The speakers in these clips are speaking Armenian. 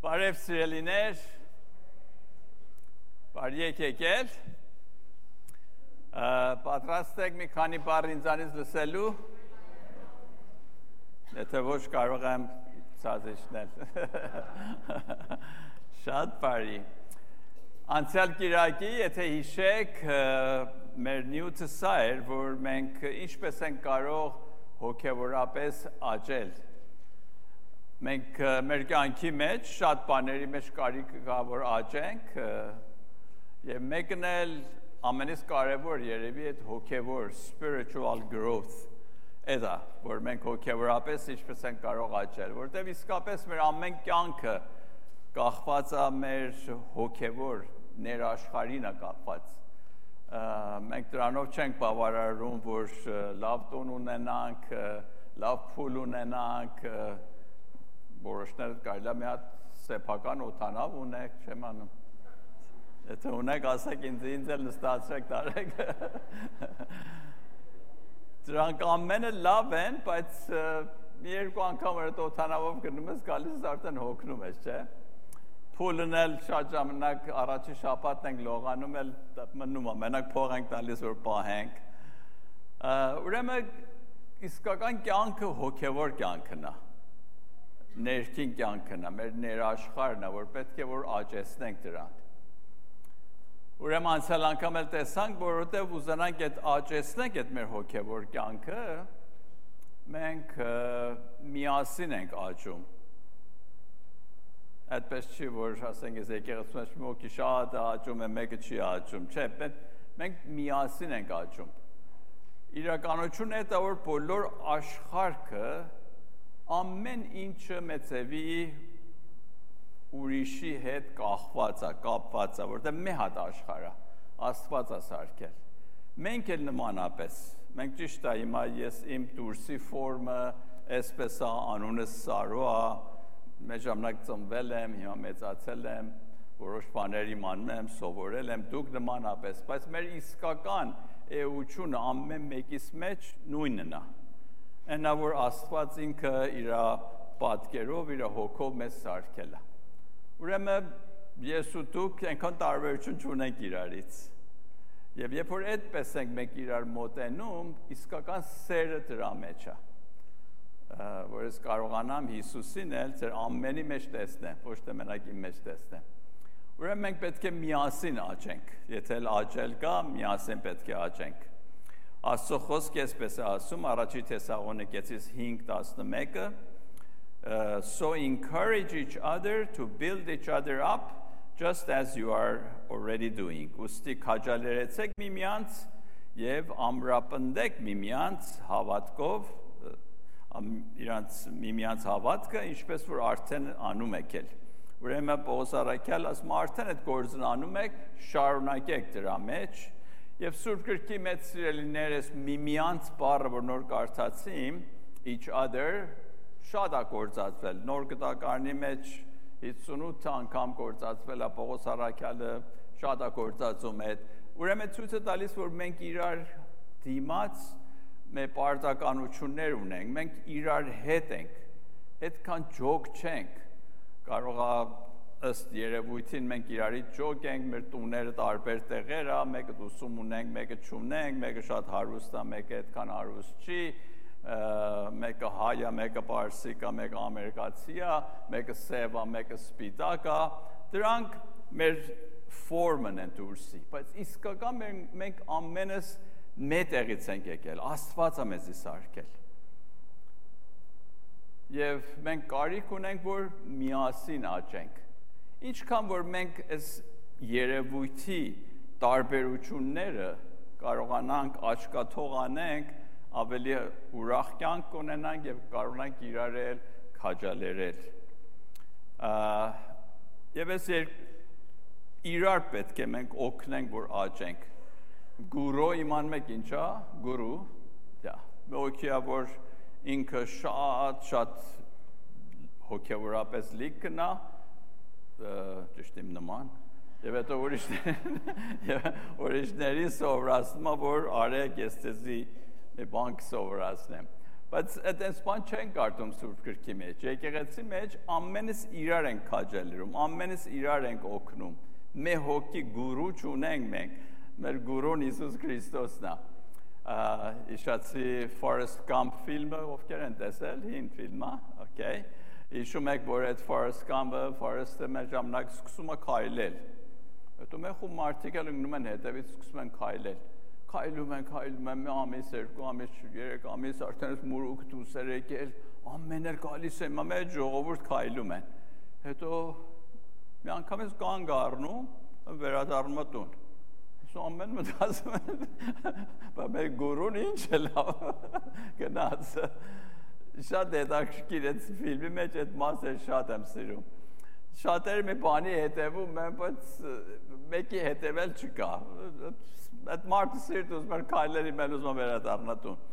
Բարև սիրելիներ, բարի եկել, պատրաստ եք մի քանի բառ ինձանից լսելու, եթե ոչ կարող եմ ցածիչնել, շատ բարի, անցյալ կիրակի, եթե հիշեք, մեր նյութը սա էր, որ մենք ինչպես ենք կարող հոգևորապես աճել, մենք մեր կյանքի մեջ շատ բաների մեջ կարիք կա որ աճենք եւ մեկն էլ ամենից կարեւոր երևի այդ հոգևոր spiritual growth էդա որ մենք հոգևորապես ինչպես ենք կարող աճել որտեղ իսկապես մեր ամեն կյանքը կախված է մեր հոգևոր ներաշխարհին է կապված մենք դրանով չենք բավարարում որ լավ տուն ունենանք լավ փուլ ունենանք որոշները կարելի է մի հատ սեփական օդանավ ունեք, չեմ անում։ Եթե ունեք, ասեք ինձ էլ նստացրեք տարեք։ Դրանք ամենը լավ են, բայց մի երկու անգամ այդ օդանավով գնում ես, գալիս ես արդեն հոգնում ես, չէ՞։ Փուլն էլ շատ ժամանակ առաջի շաբաթն ենք լողանում, էլ մնում է, մենակ փող ենք տալիս, որ պահենք։ Ուրեմն իսկական կյանքը հոգևոր կյանքն է։ Ներքին կյանքն է, մեր ներաշխարհն է, որ պետք է որ աճեցնենք դրան։ Ուրեմն անցյալ անգամ էլ տեսանք, որովհետև ուզենանք այդ աճեցնենք այդ մեր հոգևոր կյանքը, մենք միասին ենք աճում։ Այդպես չի, որ ասենք ես եկեղեցու մեջ մի հոգի շատ աճում է, մեկը չի աճում, չէ, մենք միասին ենք աճում։ Իրականությունն է դա, որ բոլոր աշխարհը ամեն ինչը մեծևի ուրիշի հետ կախված է, կապված է, որտեղ մի հատ աշխարհ է, Աստված է սարքել։ Մենք էլ նմանապես, մենք ճիշտ է, հիմա ես իմ դուրսի ֆորմը, այսպես է, անունս Սարո է, մեր ժամանակ ծնվել եմ, հիմա մեծացել եմ, որոշ բաներ իմանում եմ, սովորել եմ, դուք նմանապես, բայց մեր իսկական էությունը ամեն մեկիս մեջ նույնն է։ Այնա որ Աստված ինքը իր պատկերով, իր հոգով մեզ սարքել է։ Ուրեմն ես ու դուք այնքան տարբերություն չունենք իրարից։ Եվ երբ որ այդպես ենք մենք իրար մոտենում, իսկական սերը դրա մեջ է։ Որ ես կարողանամ Հիսուսին էլ ձեր ամենի մեջ տեսնեմ, ոչ թե մենակ իմ մեջ տեսնեմ։ Ուրեմն մենք պետք է միասին աճենք։ Եթե աճել կա, միասին պետք է աճենք։ Աստծո խոսքը այսպես է ասում առաջի Թեսաղոնիկեցիս 5:11 So encourage each other to build each other up just as you are already doing. Ուստի քաջալերեցեք միմյանց եւ ամրապնդեք միմյանց հավատքով իրանց միմյանց հավատքը ինչպես որ արդեն անում եք էլ։ Ուրեմն Պողոս առաքյալ ասում արդեն այդ գործն անում եք, շարունակեք դրա մեջ Եվ Սուրբ գրքի մեծ սիրելիներ ես միմյանց բառը, որ նոր կարդացիմ, each other, շատ է գործածվել, նոր գտակարանի մեջ 58 անգամ գործածվել է, Պողոս առաքյալը շատ է գործածում այդ, ուրեմն ցույց է տալիս, որ մենք իրար դիմաց մեր պարտականություններ ունենք, մենք իրար հետ ենք, այդքան ջոկ չենք, կարող է ըստ երևույթին մենք իրարից ջոկ ենք, մեր տուները տարբեր տեղեր է, մեկը ուսում ունենք, մեկը չունենք, մեկը շատ հարուստ է, մեկը այդքան հարուստ չի, մեկը հայ է, մեկը պարսիկ է, մեկը ամերիկացի է, մեկը սև է, մեկը սպիտակ է, դրանք մեր ֆորմն են դուրսի, բայց իսկական մենք ամենս մեր տեղից ենք եկել, Աստված է մեզի սարքել։ Եվ մենք կարիք ունենք, որ միասին աճենք։ Ինչքան որ մենք այս երևույթի տարբերությունները կարողանանք աչքաթող անենք, ավելի ուրախ կյանք ունենանք եւ կարողանանք իրարել քաջալերել։ Եվ այս իրար պետք է մենք օգնենք, որ աճենք։ Գուրո իմանում եք ինչա, գուրու, դա, մեկիա որ ինքը շատ հոգևորապես լիքն է, ճիշտ իմ նման, եւ հետո ուրիշներին սովորացնում է, որ արեք ես ձեզի մի բան կսովորացնեմ։ Բայց այդպես բան չեն կարդում Սուրբ Գրքի մեջ։ Եկեղեցի մեջ ամենից իրար ենք քաջալերում, ամենից իրար ենք օգնում։ Մեր հոգի գուրու չունենք մենք։ Մեր գուրուն Հիսուս Քրիստոսն է։ Իշացի Forrest Gump ֆիլմը ովքեր են տեսել, հին ֆիլմը, okay։ Հիշում եք, որ այդ Forrest Gump-ը, Forrest-ը մեր ժամանակ սկսում է քայլել։ Հետո մեր խումբ մարդիկ էլ ընկնում են հետևից սկսում են քայլել։ Քայլում են, մի ամիս, 2 ամիս, 3 ամիս, արդեն մուրուք դուսեր եկել, ամեն էլ գալիս են, մեր ժողովուրդ քայլում են։ Հետո մի անգամ ես կանգ առնում, վերադառնում տուն։ Ամեն մտածում են, բայց մեր գուրուն ինչ է լավ, գնաց։ Շատ հետաքրքիր այդ ֆիլմի մեջ այդ մասը շատ եմ սիրում։ Շատերը մի բանի հետևում են, բայց մեկի հետևել չկա։ Այդ մարդը սիրտ ուզում էր քայլերի մել ուզում վերադառնա տուն։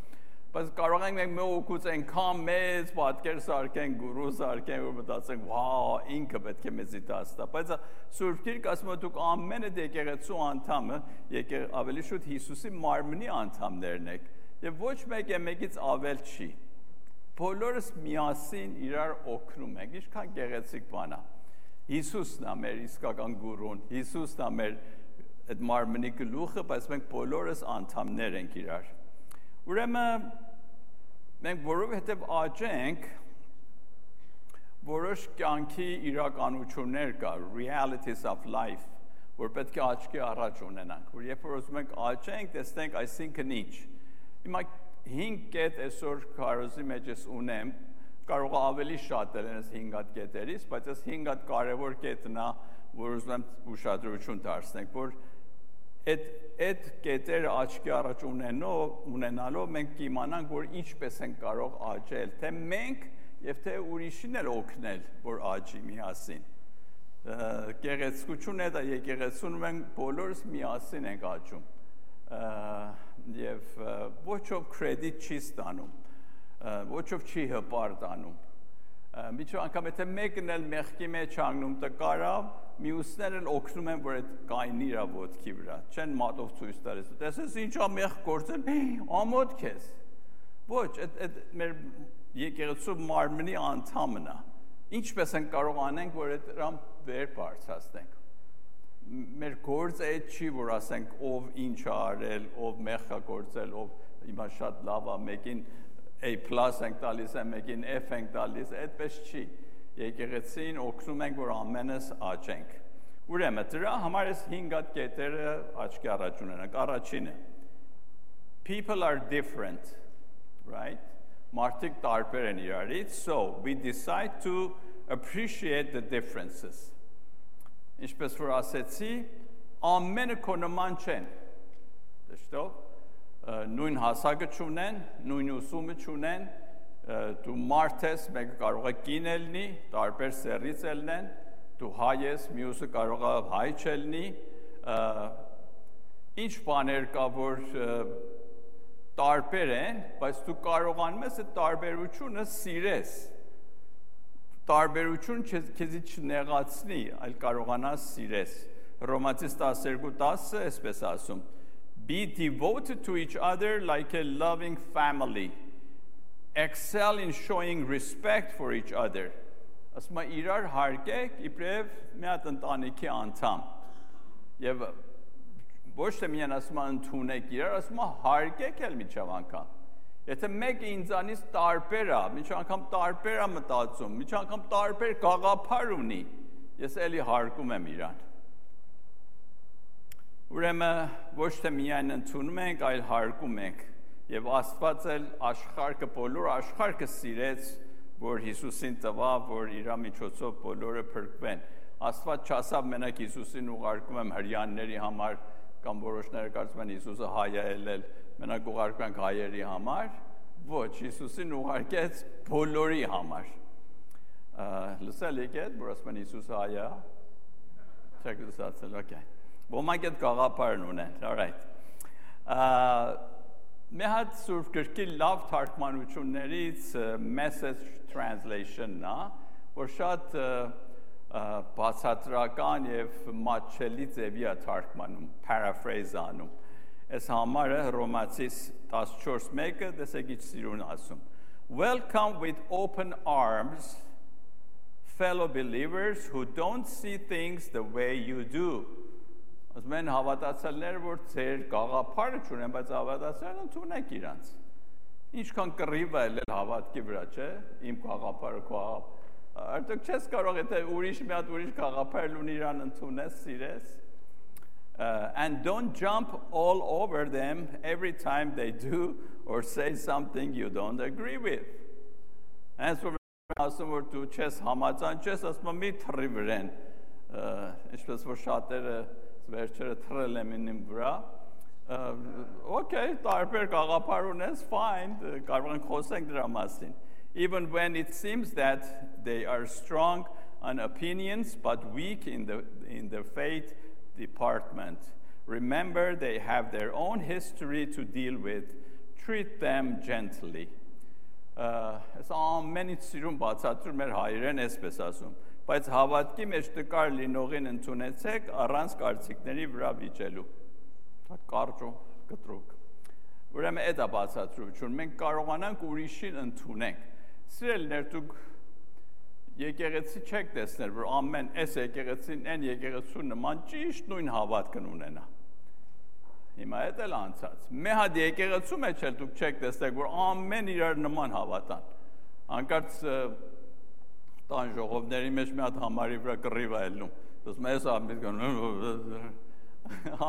Բայց կարող ենք մենք մեր օգուց այնքան մեծ պատկեր սարքենք, գուրու սարքենք, որ մտածենք, վա, ինքը պետք է մեզի դաստա։ Բայց Սուրբ Գիրքը ասում է դուք ամենը եկեղեցու անդամը, ավելի շուտ Հիսուսի մարմնի անդամներն եք, եւ ոչ մեկը մեկից ավել չի։ Բոլորս միասին իրար օգնում ենք, ինչքան գեղեցիկ բան է։ Հիսուսն է մեր իսկական գուրուն, Հիսուսն է մեր այդ մարմնի գլուխը, բայց մենք բոլորս անդամներ ենք իրար։ Ուրեմն մենք որովհետև աճենք որոշ կյանքի իրականություններ կա, realities of life, որ պետք է աչքի առաջ ունենանք, որ երբ որ ուզում ենք աճենք, տեսնենք այսինքն ինչ։ Հիմա 5 կետ այսօր քարոզի մեջ ես ունեմ, կարող է ավելի շատ են այս 5 հատ կետերից, բայց այս 5 հատ կարևոր կետն է, որ ուզում եմ ուշադրություն դարձնենք, որ այդ կետերը աչքի առաջ ունենալով մենք կիմանանք, որ ինչպես են կարող աճել, թե մենք և թե ուրիշին էլ օգնել, որ աճի միասին։ Գեղեցկությունը դա եկեղեցուն մենք բոլորս միասին ենք աճում և ոչով կրեդիտ չի ստանում, ոչով չի հպարտանում։ Միջով անգամ եթե մեկն էլ մեղքի մեջ հանգնում տկարա, մյուսներն էլ օգնում են, որ այդ կայնի իր ոտքի վրա, չեն մատով ցույց տալիս։ Տեսես ինչա մեղ գործել, ամոթ քեզ։ Ոչ, այդ մեր եկեղեցու մարմնի անդամն է։ Ինչպես են կարող անենք, որ այդ դրան վեր բարձրացնենք։ Մեր գործը այդ չի, որ ասենք ով ինչ է արել, ով մեղ է գործել, ով հիմա շատ լավ է, մեկին A+ ենք տալիս, մեկին F ենք տալիս, այդպես չի։ Եկեղեցին օգնում ենք, որ ամենս աճենք։ Ուրեմն դրա համար այս 5 հատ կետերը աչքի առաջ ունենանք։ Առաջինը people are different, right? Մարդիկ տարբեր են իրարից, so we decide to appreciate the differences. Ինչպես որ ասեցի, ամենը քո նման չեն։ Դժտո նույն հասակը չունեն, նույն ուսումը չունեն, դու մարդ ես, մեկը կարող է կին ելնի, տարբեր սեռից ելնեն, դու հայ ես, մյուսը կարող է հայ չելնի, ինչ բաներ կա, որ տարբեր են, բայց դու կարողանում ես այդ տարբերությունը սիրես, տարբերություն քեզի չնեղացնի, այլ կարողանաս սիրես։ Հռոմացիս 12:10 այսպես ասում. Be devoted to each other like a loving family. Excel in showing respect for each other. Ասում է իրար հարգեք իբրև մի հատ ընտանիքի անդամ։ Եվ ոչ թե միայն ասում է ընդունեք իրար, ասում է հարգեք էլ միջև անգամ։ Եթե մեկը ինձանից տարբեր է, միջև անգամ տարբեր է մտածում, միջև անգամ տարբեր գաղափար ունի, ես էլի հարգում եմ իրան։ Ուրեմն ոչ թե միայն ընդունում ենք, այլ հարգում ենք եւ Աստված էլ աշխարհը բոլոր աշխարհը սիրեց, որ Հիսուսին տվավ, որ իր միջոցով բոլորը փրկվեն։ Աստված չասավ մենակ Հիսուսին ուղարկում եմ հрьяաների համար, կամ որոշները կարծում են Հիսուսը հայ է ելել, մենակ ուղարկում ենք հայերի համար, ոչ, Հիսուսին ուղարկեց բոլորի համար։ Լսել եք այդ, որ ասում են Հիսուսը հայ է։ Չեք լսացել, okay։ Ոմանք այդ գաղափարն ունեն, all right։ Մի հատ Սուրբ Գրքի լավ թարգմանություններից message translation-ն է, որ շատ բացատրական եւ մատչելի ձևի է թարգմանում, paraphrase անում։ Այս համարը Հռոմացիս 14:1-ը տեսեք ինչ սիրուն ասում. Welcome with open arms fellow believers who don't see things the way you do. Ասում են հավատացյալները, որ ձեր գաղափարը չունեն, բայց հավատացյալները ընդունեք իրանց։ Ինչքան կռիվ է ելել հավատքի վրա, չէ՞, իմ գաղափարը քո արդյոք չես կարող եթե ուրիշ մի հատ ուրիշ գաղափար ունի իրան ընդունես, սիրես։ And don't jump all over them every time they do or say something you don't agree with. As for ասում որ դու չես համաձայն, ասում մի թռի վրան, ինչպես որ շատերը վերջերը թռել եմ ինձ վրա, okay, տարբեր գաղափար ունես, fine, կարող ենք խոսենք դրա մասին. Even when it seems that they are strong on opinions but weak in the faith department. Remember, they have their own history to deal with. Treat them gently. Այս ամենից սիրուն բացատրում էր հայերեն այսպես ասում, բայց հավատքի մեջ տկար լինողին ընդունեցեք առանց կարծիքների վրա վիճելու։ Կարճ ու կտրուկ։ Ուրեմն այդ է բացատրությունը, մենք կարողանանք ուրիշին ընդունենք։ Սիրելիներ, դուք եկեղեցի չեք տեսնել, որ ամեն այս եկեղեցին, այն եկեղեցու նման ճիշտ նույն հավատքն ունենա։ Հիմա այդ էլ անցած։ Մի հատ եկեղեցու մեջ էլ դուք չեք տեսնել, որ ամեն իրար նման հավատան։ Անկարծ տան ժողովների մեջ մի հատ համարի վրա կռիվ է ելնում։ Դուք մեզ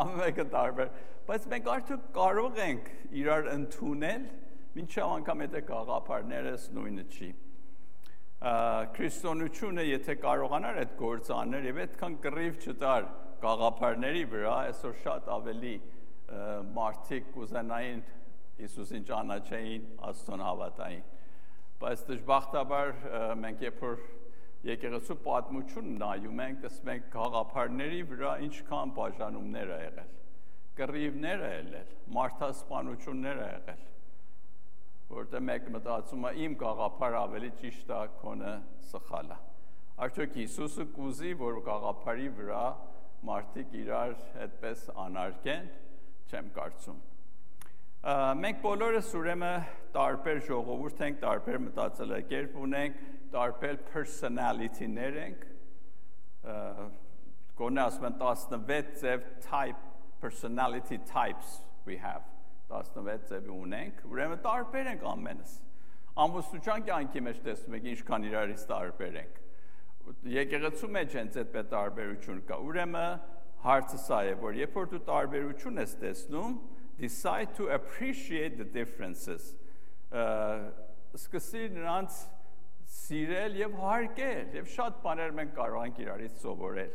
ամենը տարբեր, բայց մենք արդյոք կարող ենք իրար ընդունել, մինչև անգամ եթե գաղափարներս նույնը չի։ Քրիստոնեությունը եթե կարողանար այդ գործը անել եւ այդքան կռիվ չտար գաղափարների վրա, այսօր շատ ավելի մարդիկ կուզենային Հիսուսին ճանաչեին, Աստծուն հավատային։ Բայց դժբախտաբար մենք երբ որ եկեղեցու պատմություն նայում ենք, տեսնում ենք գաղափարների վրա ինչքան բաժանումներ ա եղել, կռիվներ ա եղել, մարդասպանություններ ա եղել, որտեղ մեկ մտածում է իմ գաղափարը ավելի ճիշտ է, քոնը սխալ է։ Արդյոք Հիսուսը կուզի, որ գաղափարի վրա մարդիկ իրար այդպես անարգեն, չեմ կարծում։ Մենք բոլորս ուրեմն տարբեր ժողովուրդ ենք, տարբեր մտածելակերպ ունենք, տարբեր personality-ներ ենք, գոնե ասում են 16 ձև personality types we have, 16 ձև ունենք, ուրեմն տարբեր ենք ամենս։ Ամուսնության կյանքի մեջ տեսնում եք ինչքան իրարից տարբեր ենք։ Եկեղեցու մեջ հենց այդպես տարբերություն կա։ Ուրեմն հարցը սա է, որ երբ որ դու տարբերություն ես տեսնում, decide to appreciate the differences. Սկսի նրանց սիրել եւ հարգել, եւ շատ բաներ մենք կարող ենք իրարից սովորել։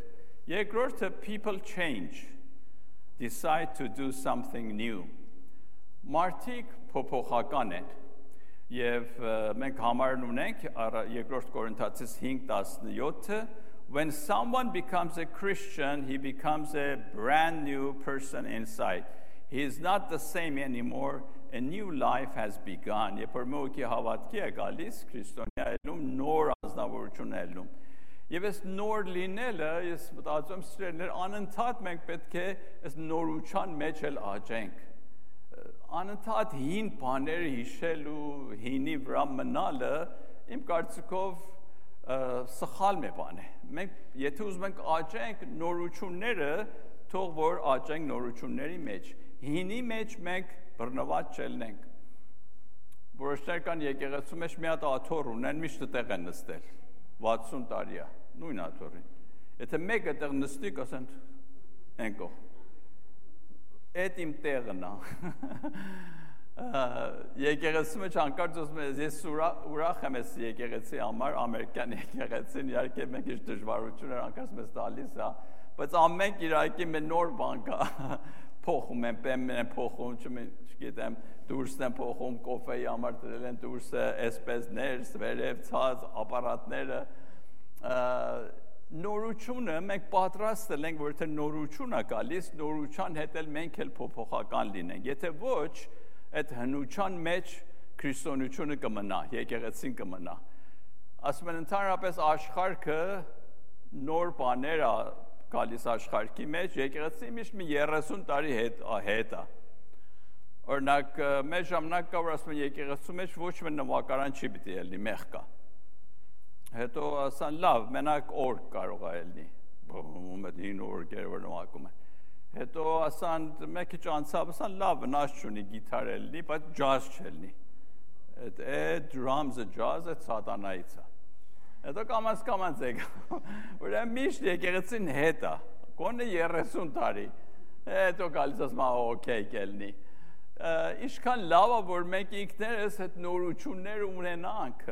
Երկրորդը people change. Decide to do something new. Մարդիկ փոփոխական են։ Եվ մենք համարն ունենք երկրորդ Կորինթացիս 5:17, when someone becomes a Christian, he becomes a brand new person inside. He is not the same anymore. A new life has begun. Երբ որ մեկի հավատքի է գալիս, քրիստոնյա ելնում, նոր ազնվորություն ելնում։ Եվ այս նոր լինելը, ես մտածում եմ սիրելիներ, անընդհատ մենք պետք է այս նորության մեջ էլ աճենք։ Անընդհատ հին բաները հիշելու, հինի վրա մնալը, իմ կարծիքով սխալ մի բան է։ Մենք եթե ուզում ենք աճենք նորությունները, թող որ աճենք նորությունների մեջ։ Հինի մեջ մենք բռնված չելնենք։ Որոշներ կան եկեղեցու մեջ մի հատ աթոռ ունեն, միշտ տեղ են նստել։ 60 տարի է, նույն աթոռին։ Եթե մեկը տեղ նստի, կասեն ենքո։ Այդ իմ տեղն է։ Եկեղեցու մեջ անկարծ ասում եմ, ես ուրախ եմ այս եկեղեցի համար, ամերիկյան եկեղեցին, իհարկե մենք ինչ դժվարություններ անկարծ մեզ տալիս է, բայց ամենք իհարկե մի նոր բան կա, փոխում են, պեմն են փոխում, չգիտեմ, դուրսն են փոխում, կոֆեի համար դրել են դուրսը, այսպես ներս, վերև, ցած, ապարատները, նորությունը մենք պատրաստ ենք, որ եթե նորություն է գալիս, նորության հետ էլ մենք էլ փոփոխական լինենք։ Եթե ոչ, այդ հնության մեջ քրիստոնեությունը կմնա, եկեղեցին կմնա։ Ասում են ընդհանրապես աշխարհը նոր բաներ է գալիս աշխարհի մեջ, եկեղեցի միշտ մի 30 տարի հետ է։ Օրինակ, մեր ժամանակ կա, որ ասում են եկեղեցու մեջ ոչ մի նվագարան չի պիտի ելնի, մեղ կա։ Հետո ասան, լավ, մենակ օրգ կարող է ելնի։ Բոմ այդ 9 օրգերը որ նվագում են։ Հետո ասան, մեկ քիչ անցավ, ասան, լավ, վնաս չունի, գիտար ելնի, բայց ջազ չելնի։ Այդ drums-ը ջազը սատանայից է։ Հետո կամաց եկա։ Ուրեմն միշտ եկեղեցին հետ է։ Կոնե 30 տարի։ Հետո գալիս ասում, օքեյ կելնի։ Ինչքան լավ է, որ մենք ինքներս այդ նորությունները ունենանք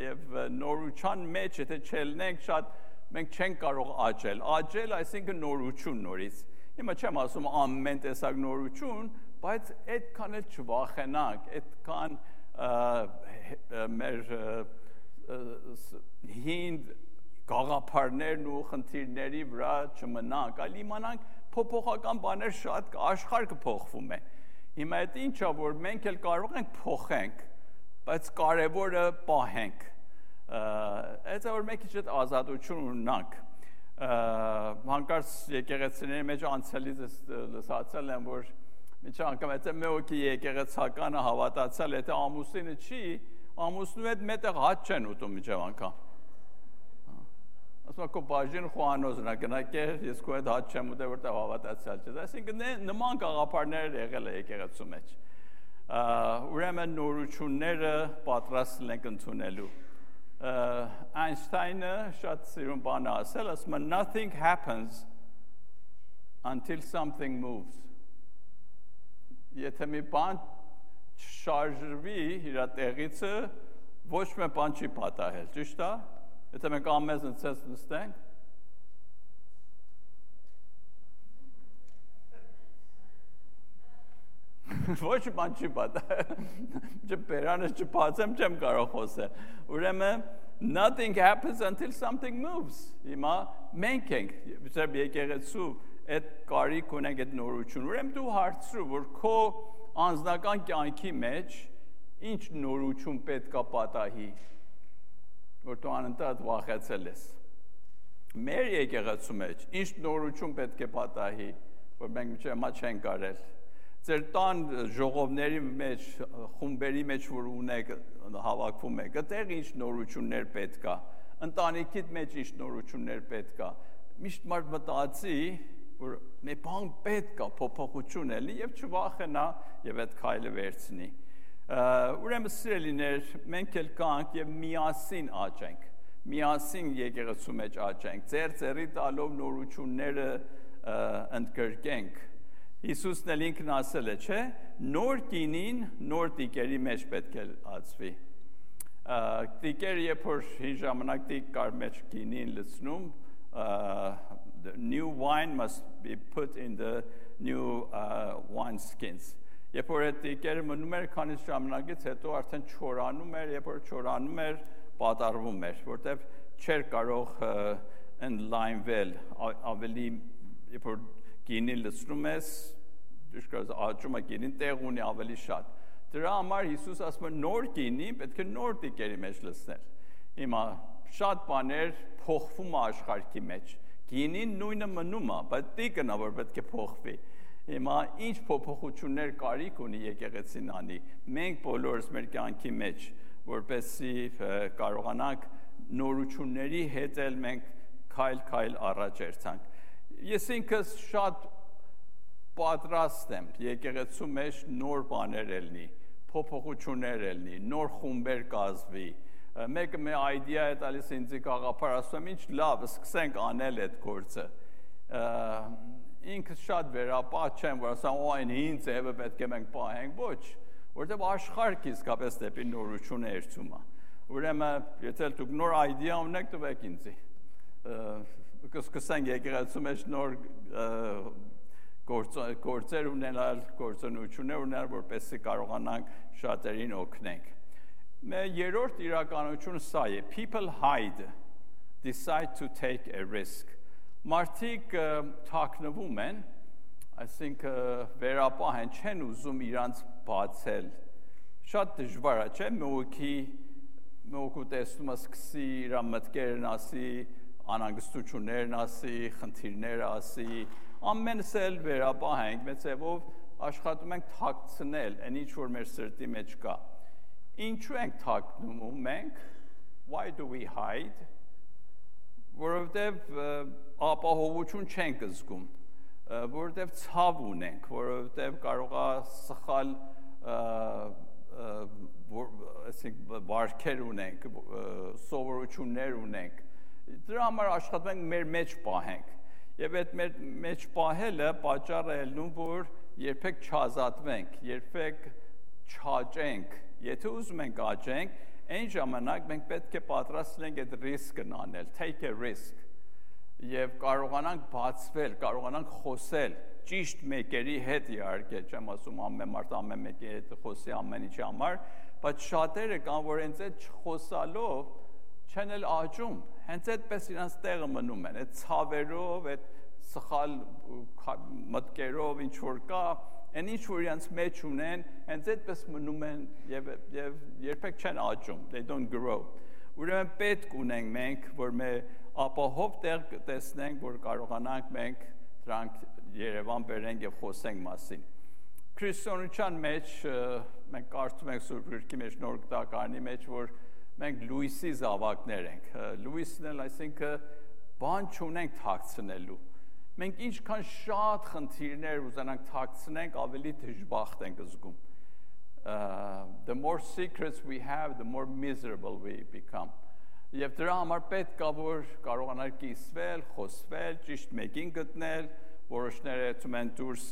եւ նորության մեջ, եթե չելնենք շատ, մենք չենք կարող աճել։ Աճել, այսինքն նորություն նորից։ Հիմա չեմ ասում ամեն տեսակ նորություն, բայց այդքան էլ չվախենանք, այդքան մեր հին գաղափարներն ու խնդիրների վրա չմնանք, այլ իմանանք փոփոխական բաներ շատ կա, աշխարհը փոխվում է։ Հիմա այդ ինչա, որ մենք էլ կարող ենք փոխենք, բայց կարևորը պահենք։ Այդ է, որ մենք ինչ ազատություն ունենանք։ Հանկարծ եկեղեցիների մեջ անցյալից լսացել եմ, որ միջի անգամ եթե մեկի եկեղեցականը հավատացել, եթե ամուսինը չի, ամուսնու հետ մետեղ հաց չեն ուտում միջև անգամ։ Ասում ակո բաժին խոհանոզն է գնակեր, ես քո հետ հաց չեմ ուտել, որտեղ հավատացյալ չես։ Այսինքն նման գաղափարներ եղել է եկեղեցու մեջ։ Ուրեմն նորությունները պատրաստ ենք ընդունելու։ Այնշտայնը շատ սիրուն բան է ասել, ասում է nothing happens until something moves։ Եթե մի բան շարժվի իր տեղիցը, ոչ մի բան չի պատահել, ճիշտ է։ Եթե մենք ամեն ցես նստենք, ոչ բան չի պատահել, չբերանը չփածեմ, չեմ կարող խոսել։ Ուրեմն nothing happens until something moves։ Հիմա մենք ենք, ծեր եկեղեցու այդ կարիք ունենք այդ նորություն։ Ուրեմն դու հարցրու, որ քո անձնական կյանքի մեջ ինչ նորություն պետք է պատահի, որ դու անընդհատ վախեցել ես։ Մեր եկեղեցու մեջ ինչ նորություն պետք է պատահի, որ մենք մինչև հիմա չենք արել։ Ձեր տան ժողովների մեջ, խումբերի մեջ, որ ունեք, հավաքվում եք, այդտեղ ինչ նորություններ պետք է, ընտանիքիդ մեջ ինչ նորություններ պետք է։ Միշտ մարդ մտածի, որ մի բան պետք է փոփոխություն ելնի եւ չվախենա եւ այդ քայլը վերցնի։ Ուրեմն սիրելիներ, մենք էլ կանք եւ միասին աճենք, միասին եկեղեցու մեջ աճենք, ձեր տալով նորությունները ընդգրկենք։ Հիսուսն էլ ինքն ասել է, չէ՞, նոր կինին նոր տիկերի մեջ պետք է ածվի։ Տիկերը երբ որ հին ժամանակ տիկ կար մեջ կինին լցնում, the new wine must be put in the new wine skins։ Երբ որ այդ տիկերը մնում էր քանի ժամանակից հետո արդեն չորանում էր, երբ որ չորանում էր, պատառվում էր, որտեղ չէր կարող ընդլայնվել, ավելի երբ որ գինին լցնում ես, դժգոհ աճում է գինին տեղ ունի ավելի շատ։ Դրա համար Հիսուս ասում է նոր գինին պետք է նոր տիկերի մեջ լցնել։ Հիմա շատ բաներ փոխվում է աշխարհի մեջ։ Գինին նույնը մնում է, բայց տիկն է որ պետք է փոխվի։ Հիմա ինչ փոփոխություններ կարիք ունի եկեղեցին անի։ Մենք բոլորս մեր կյանքի մեջ, որպեսզի կարողանանք նորությունների հետ էլ մենք քայլ առաջ երթանք։ Ես ինքս շատ պատրաստ եմ եկեղեցու մեջ նոր բաներ ելնի, փոփոխություններ ելնի, նոր խումբեր կազմվի։ Մեկը մի idea է տալիս ինձ գաղափար, ասում եմ ինչ լավ, սկսենք անել այդ գործը։ Ինքս շատ վերապահ չեմ, որ ասեմ, այն հին ձևը պետք է մենք պահենք, ոչ, որտեղ աշխարհը իսկապես դեպի նորություն է երթում։ Ուրեմն, եթե դուք նոր idea ունեք, տվեք ինձ։ Կսկսենք եկեղեցու մեջ նոր գործեր ունենալ, գործունեություններ ունենալ, որպեսզի կարողանանք շատերին օգնենք։ Մեր երրորդ իրականությունը սա է. people hide, decide to take a risk։ Մարդիկ թաքնվում են, այսինքն վերապահ են, չեն ուզում իրանց բացել։ Շատ դժվար է, չէ՞, մեկու տեսնում սկսի իր մտքերն ասի, անհանգստություններն ասի, խնդիրները ասի, ամենս էլ վերապահ ենք, մեծ ձևով աշխատում ենք թաքցնել այն ինչ որ մեր սրտի մեջ կա։ Ինչու ենք թաքցնում մենք? Why do we hide? Որովհետև ապահովություն չենք զգում, որովհետև ցավ ունենք, որովհետև կարող է սխալ վարքեր ունենք, սովորություններ ունենք։ Դրա համար աշխատում ենք մեր մեջ պահենք։ Եվ այդ մեր մեջ պահելը պատճառ է ելնում, որ երբեք չազատվենք, երբեք չաճենք։ Եթե ուզում ենք աճենք, այն ժամանակ մենք պետք է պատրաստ լինենք այդ ռիսկն անել, take a risk, եւ կարողանանք բացվել, կարողանանք խոսել ճիշտ մեկերի հետ իհարկե, չեմ ասում ամեն մարդ ամեն մեկի հետ խոսի ամեն ինչի համար, բայց շատերը կան, որ հենց այդ չխոսալով չեն էլ աճում, հենց այդպես իրանց տեղը մնում են, այդ ցավերով, այդ սխալ մտքերով, ինչ որ կա, այն ինչ որ իրանց մեջ ունեն, հենց այդպես մնում են եւ երբեք չեն աճում, they don't grow։ Ուրեմն պետք ունենք մենք, որ մեր ապահով տեղ տեսնենք, որ կարողանանք մենք դրանք Երևան բերենք եւ խոսենք մասին։ Քրիստոնեության մեջ մենք կարդում ենք Սուրբ Գրքի մեջ Նոր Գտակարանի մեջ, որ մենք Լուիսի զավակներ ենք։ Լուիսն էլ այսինքն բան չունենք թաքցնելու։ Մենք ինչքան շատ խնդիրներ ուզենանք թաքցնենք, ավելի դժբախտ ենք զգում։ The more secrets we have, the more miserable we become. Եվ դրա համար պետք է որ կարողանալ կիսվել, խոսվել, ճիշտ մեկին գտնել, որոշները եկում են դուրս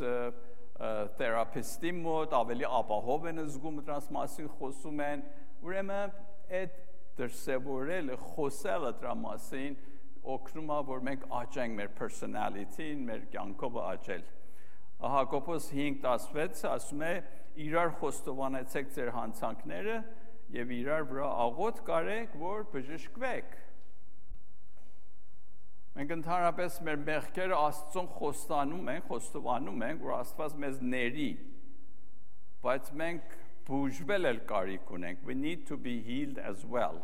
թերապիստի մոտ, ավելի ապահով են զգում դրանց մասին խոսում են, ուրեմն այդ դրսևորելը, խոսելը դրա մասին օգնում է, որ մենք աճենք մեր personality-ին, մեր կյանքով աճել։ Հակոբոս 5:16 ասում է. իրար խոստովանեցեք ձեր հանցանքները եւ իրար վրա աղոթ կարեք, որ բժշկվեք։ Մենք ընդհանրապես մեր մեղքերը Աստծուն խոստովանում ենք, որ Աստված մեզ ների, բայց մենք բուժվել էլ կարիք ունենք, we need to be healed as well։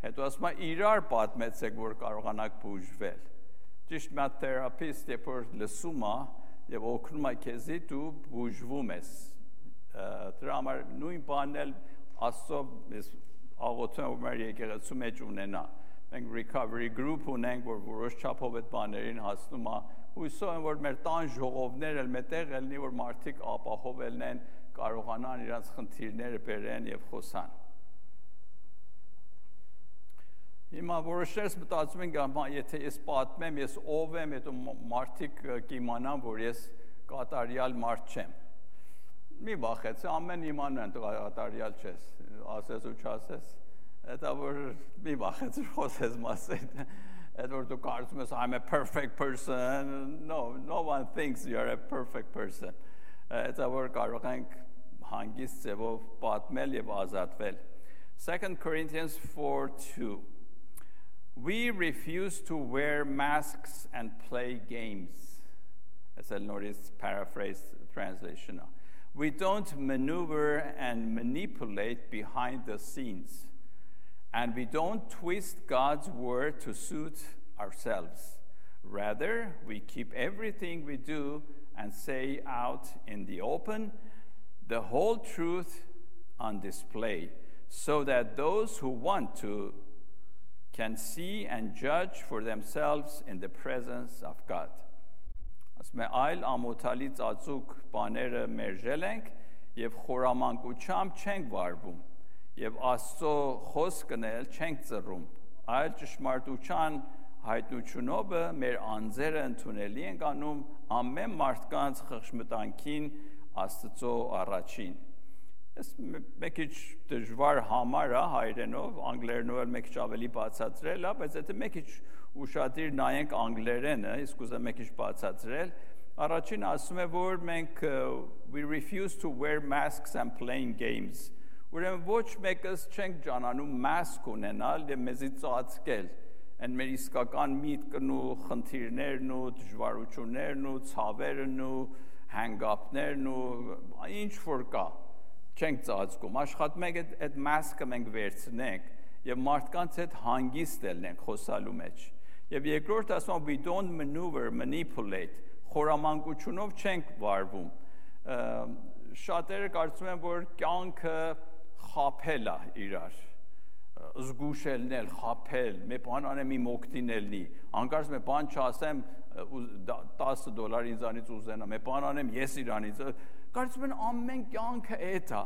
Հետո ասում է իրար պատմեցեք, որ կարողանաք բուժվել։ Ճիշտ մի թերապիստ երբ որ լսում է եւ օգնում է քեզի, դու բուժվում ես։ Դրա համար նույն բանն էլ Աստծո աղոթում որ մեր եկեղեցու մեջ ունենա։ Մենք recovery group ունենք, որ որոշ չափով այդ բաներին հասնում է։ Հույսով եմ, որ մեր տան ժողովներ էլ մետեղ ելնի, որ մարդիկ ապահով ելնեն, կարողանան իրենց խնդիրները բերեն եւ խոսան։ Հիմա որոշներս մտածում են, եթե ես պատմեմ, ես ով եմ, հետո մարդիկ կիմանան, որ ես կատարյալ մարդ չեմ։ Մի վախեցի, ամեն իմանան դու կատարյալ չես, ասես ու չասես։ Դա որ մի վախեցի խոսես մասին։ Այդ որ դու կարծում ես I'm a perfect person, no one thinks you're a perfect person։ Դա որ կարող ենք հանգիստ ձևով պատմել եւ ազատվել։ 2 Corinthians 4:2 We refuse to wear masks and play games. As a Norris paraphrase translation. We don't maneuver and manipulate behind the scenes. And we don't twist God's word to suit ourselves. Rather, we keep everything we do and say out in the open, the whole truth on display, so that those who want to can see and judge for themselves in the presence of God. Ասում է այլ ամոթալի ծածուկ բաները մերժել ենք եւ խորամանկությամբ չենք վարվում եւ Աստծո խոսքն էլ չենք ծռում, այլ ճշմարտության հայտնությունով մեր անձերը ընդունելի ենք անում ամեն մարդկանց խղճմտանքին Աստծո առաջին։ Ես մեկ քիչ դժվար համար է հայերենով, անգլերենով էլ մեկ քիչ ավելի բացատրել է, բայց եթե մեկ քիչ ուշադիր նայենք անգլերենը, իսկ ուզեմ մեկ քիչ բացատրել, առաջին ասում է, որ մենք we refuse to wear masks and playing games։ Ուրեմն ոչ մեկս չենք ճանանում mask ունենալ եւ մեզի ծածկել, այն մեր իսկական միտքն ու խնդիրներն ու դժվարություններն ու ցավերն ու հանգապներն ու ինչ որ կա չենք ծածկում, աշխատում ենք այդ մասկը մենք վերցնենք եւ մարդկանց հետ հանգիստ ելնենք խոսալու մեջ։ Եվ երկրորդ ասում we don't maneuver, manipulate, խորամանկությունով չենք վարվում։ շատերը կարծում են, որ կյանքը խաբել է իրար, զգուշելնել, խաբել, մի բան անեմ իմ օգտին ելնի, անկարծ մի բան չասեմ, $10 ինձանից ուզենա, մի բան անեմ ես իրանից, կարծում են ամեն կյանքը էդ է,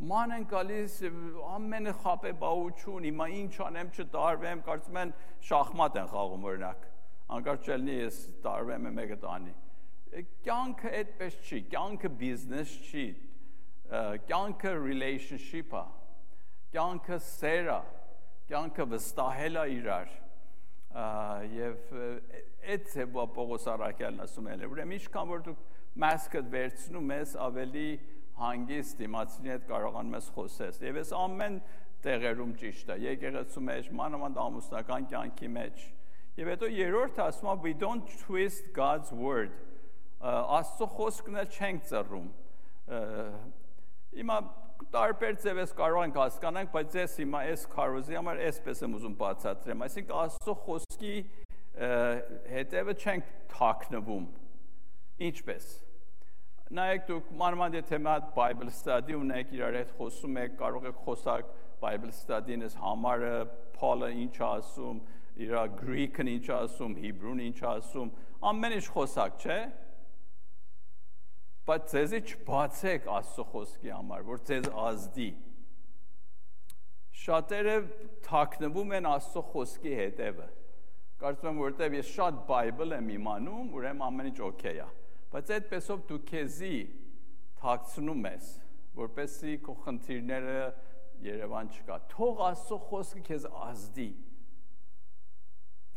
ման են գալիս, ամենը խաբեբաություն, հիմա ինչ անեմ չտարվեմ, կարծում են շախմատ են խաղում օրինակ, անկարծ չելնի ես տարվեմ մեկը տանի, կյանքը այդպես չի, կյանքը բիզնես չի, կյանքը relationship է, կյանքը սեր է, կյանքը վստահել է իրար, եւ այդ ձևով Պողոս առաքյալն ասում է, ուրեմն ինչքան որ դուք մասկդ վերցնում ես, ավելի հանգիստ դիմացինի հետ կարողանում ես խոսես, եւ այս ամեն տեղերում ճիշտ է, եկեղեցու մեջ, մանավանդ ամուսնական կյանքի մեջ, եւ հետո երրորդը ասում է we don't twist God's word, Աստծո խոսքն էլ չենք ծռում, հիմա տարբեր ձևես կարող ենք հասկանանք, բայց ես հիմա այս քարոզի համար այսպես եմ ուզում բացատրեմ, այսինքն Աստծո խոսքի հետևը չենք թաքնվում, ինչպես, նայեք դուք մանավանդ եթե մի հատ Bible study ունեք, իրար հետ խոսում եք, կարող եք խոսակ Bible study-ն ես համարը, Paul-ը ինչ ասում, իր Greek-ն ինչ ասում, Hebrew-ն ինչ ասում, ամեն ինչ խոսակ, չէ՞? Բայց ձեզի չբացեք Աստծո խոսքի համար, որ ձեզ ազդի։ Շատերը թաքնվում են Աստծո խոսքի հետևը։ Կարծում եմ, որտեղ ես շատ Bible եմ իմանում, ուրեմն ամեն ինչ օքեյ է։ Բայց այդպեսով դու քեզի թաքցնում ես, որպեսզի քո խնդիրները Երևան չկա։ Թող Աստծո խոսքը քեզ ազդի։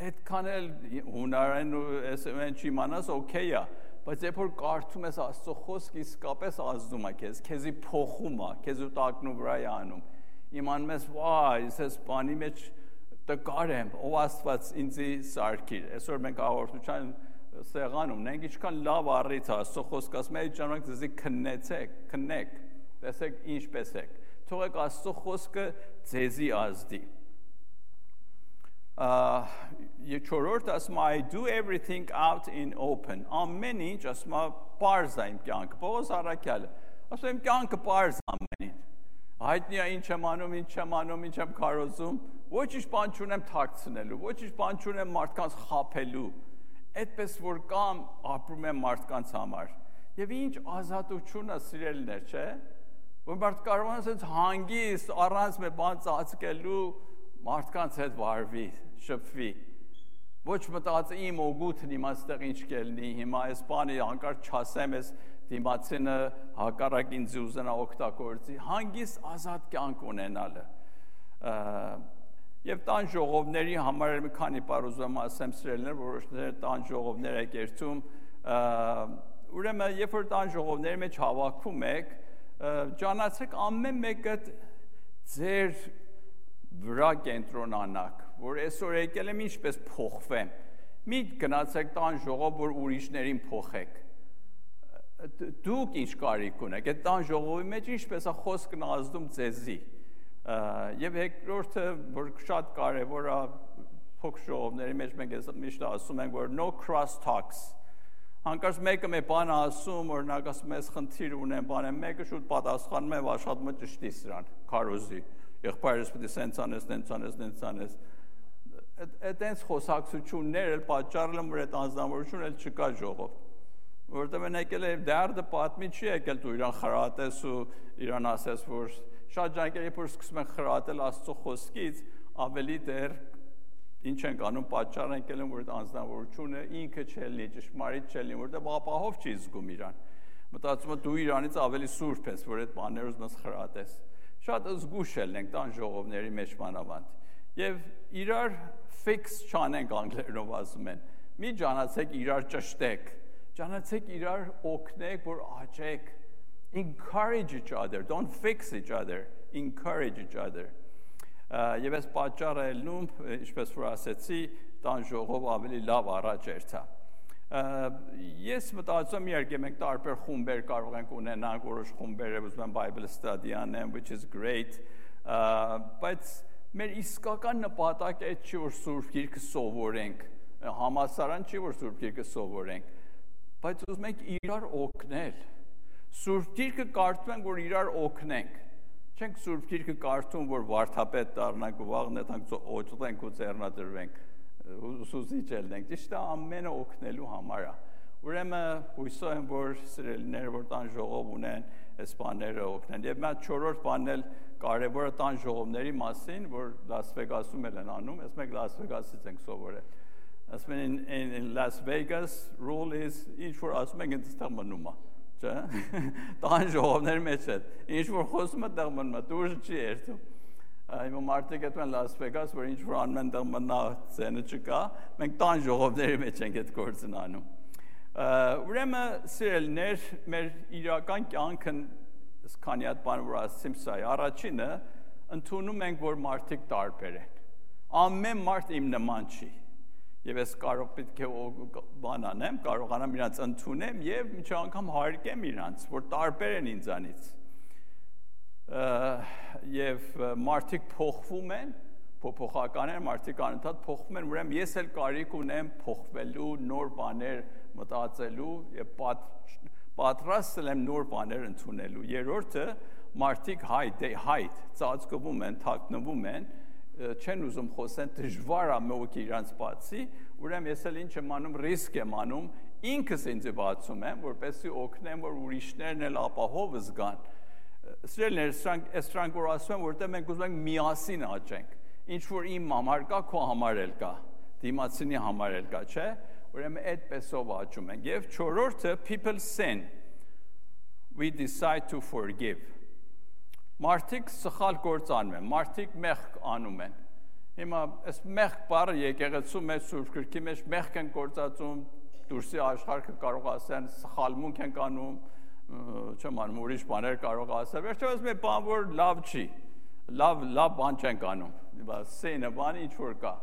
Այդքան էլ հունարեն ու այսպես չիմանաս օքեյ է։ Բայց երբ որ կարդում ես Աստծո խոսքը, իսկապես ազդում է քեզ, քեզի փոխում է, քեզ ու տակնու վրա է անում։ Իմանում ես, վայ, ես բանի մեջ տկար եմ, ով Աստված ինձի սարքիր։ Այսօր մենք հաղորդության սեղանում ունենք, ինչքան լավ առիթ է Աստծո խոսքը, ասում է, այդ ժամանակ ձեզի քննեք, տեսեք ինչպես եք։ Թողեք Աստծո խոսքը ձեզի ազդի։ Չորրորդ ասում է I do everything out in open ամեն ինչ ասում է պարզ է իմ կյանքը Պողոս առաքյալը ասում եմ կյանքը պարզ ամեն ինչ հայտնի է ինչ եմ անում ինչ եմ քարոզում ոչինչ բան չունեմ թաքցնելու ոչինչ բան չունեմ մարդկանց խաբելու այդպես որ կամ ապրում եմ մարդկանց համար եւ ինչ ազատություն է սիրելիներ չէ որ մարդ կարող է ասած հանգիստ առանց մի բան ծածկելու մարդկանց հետ վարվի շփվի ոչ մտածի իմ օգուտն իմ այստեղ ինչ կելնի հիմա այս բանը հանկարծ չասեմ այս դիմացինը հակառակ ինձ ուզենա օգտագործի հանգիստ ազատ կյանք ունենալը եւ տան ժողովների համար մի քանի բառ ուզում ասեմ սիրելիներ որոշները տան ժողովներ եք երթում ուրեմն երբ որ տան ժողովների մեջ հավաքվում եք ճանաչեք ամեն մեկը ձեր վրա կենտրոնանաք որ այսօր եկել եմ ինչպես փոխվեմ մի գնացեք տան ժողով որ ուրիշներին փոխեք դուք ինչ կարիք ունեք այդ տան ժողովի մեջ ինչպես է խոսքն ազդում ձեզի եւ երկրորդը որ շատ կարեւոր է փոքր ժողովների մեջ մենք միշտ ասում ենք որ no cross talks հանկարծ մեկը մի բան ասում օրինակ ասում ես խնդիր ունեմ բան եմ մեկը շուտ պատասխանում է աշխատում է ճշտի սրան քարոզի եղբայրս պետք է սենց անես այդտենց խոսակցություններ էլ պատճառել են որ այդ անձնավորությունը էլ չկա ժողով որտեղ են եկել է դարձը պատմի չի եկել դու իրան խրատես ու իրան ասես որ շատ ջանքեր երբ որ սկսում են խրատել Աստծո խոսքից ավելի դեռ ինչ են անում պատճառ են եկել որ այդ անձնավորությունը ինքը չելնի ճշմարիտ չելնի որտեղ ապահով չի զգում իրան մտածում է դու իրանից ավելի սուրբ ես որ այդ բաները ուզում ես խրատես շատ զգուշ ենք տան ժողովների մեջ մանավանդ եւ իրար fix չանենք անգլերենով ասում են մի ճանաչեք իրար ճշտեք ճանաչեք իրար օգնեք որ աճեք encourage each other don't fix each other encourage each other եւ այս պատճառը ելնում ինչպես որ ասեցի տան ժողով ավելի լավ առաջ երթա ես մտածում իհարկե մենք տարբեր խումբեր կարող ենք ունենալ որոշ խումբեր ուզում են Bible study անեն which is great բայց մեր իսկական նպատակը այդ չի որ Սուրբ Գիրքը սովորենք համասարան չի որ Սուրբ Գիրքը սովորենք բայց ուզում ենք իրար օգնել Սուրբ Գիրքը կարդում ենք, որ իրար օգնենք։ Չենք Սուրբ Գիրքը կարդում, որ վարդապետ դառնանք ու վաղ նետանք օծենք ու ձեռնադրվենք, ուսուցիչ ելնենք։ Ճիշտ է, ամենը օգնելու համար է։ Ուրեմն հույսով եմ, որ սիրելիները, որ տան ժողով ունեն, այս բաները օգնեն։ Եվ մի 4-րդ բանն էլ կարևորը տան ժողովների մասին, որ Լաս Վեգասում են անում, ես մենք Լաս Վեգասից ենք սովորել։ Ասում են in Las Vegas rule is ինչ որ ասում ենք այդտեղ մնում է, չէ՞։ Տան ժողովների մեջ է։ Ինչ որ խոսում է տեղ մնում է, դուրս չի երթում։ Հիմա մարդիկ այդպես Լաս Վեգաս, որ ինչ որ անում են տեղ մնա ցենը չկա, մենք տան ժողովների մեջ ենք այդ գործն անում։ Ուրեմն սիրելիներ, մեր իրական կյանքն քանի հատ բան որ ասացիմ սա է, առաջինը ընդունում ենք, որ մարդիկ տարբեր են։ Ամեն մարդ իմ նման չի։ Եվ ես կարող պետք է բան անեմ, կարողանամ իրանց ընդունեմ եւ միջ անգամ հարգեմ իրանց, որ տարբեր են ինձանից։ Եվ մարդիկ փոխվում են, փոփոխական են, մարդիկ անընդհատ փոխվում են, ուրեմն ես էլ կարիք ունեմ փոխվելու, նոր բաներ մտածելու եւ պատրաստ եմ նոր բաներ ընդունելու։ Երրորդը մարդիկ հայտ ծածկվում են, թաքնվում են, չեն ուզում խոսեն, դժվար է մեկը իրանց բացի, ուրեմն ես էլ ինչ եմ անում, ռիսկ եմ անում, ինքս ինձ բացում եմ, որպեսզի օգնեմ, որ ուրիշներն էլ ապահով զգան։ Սիրելիներ, սրանք որ ասում եմ, որտեղ մենք ուզում ենք միասին աճենք, ինչ որ իմ համար կա, քո համար էլ կա, դիմացինի համար էլ կա, չէ՞։ Ուրեմն այդպեսով աճում ենք։ Եվ չորրորդը people sin, we decide to forgive։ Մարդիկ սխալ գործ անում են, մարդիկ մեղք անում են։ Հիմա այս մեղք բառը եկեղեցու մեջ Սուրբ Գրքի մեջ մեղք են գործածում, դուրսի աշխարհը կարող ասեն սխալմունք են անում, չեմ անում ուրիշ բաներ կարող ասել։ Վերջապես մի բան որ լավ չի, լավ բան չենք անում։ Սենը բան ինչ որ կա։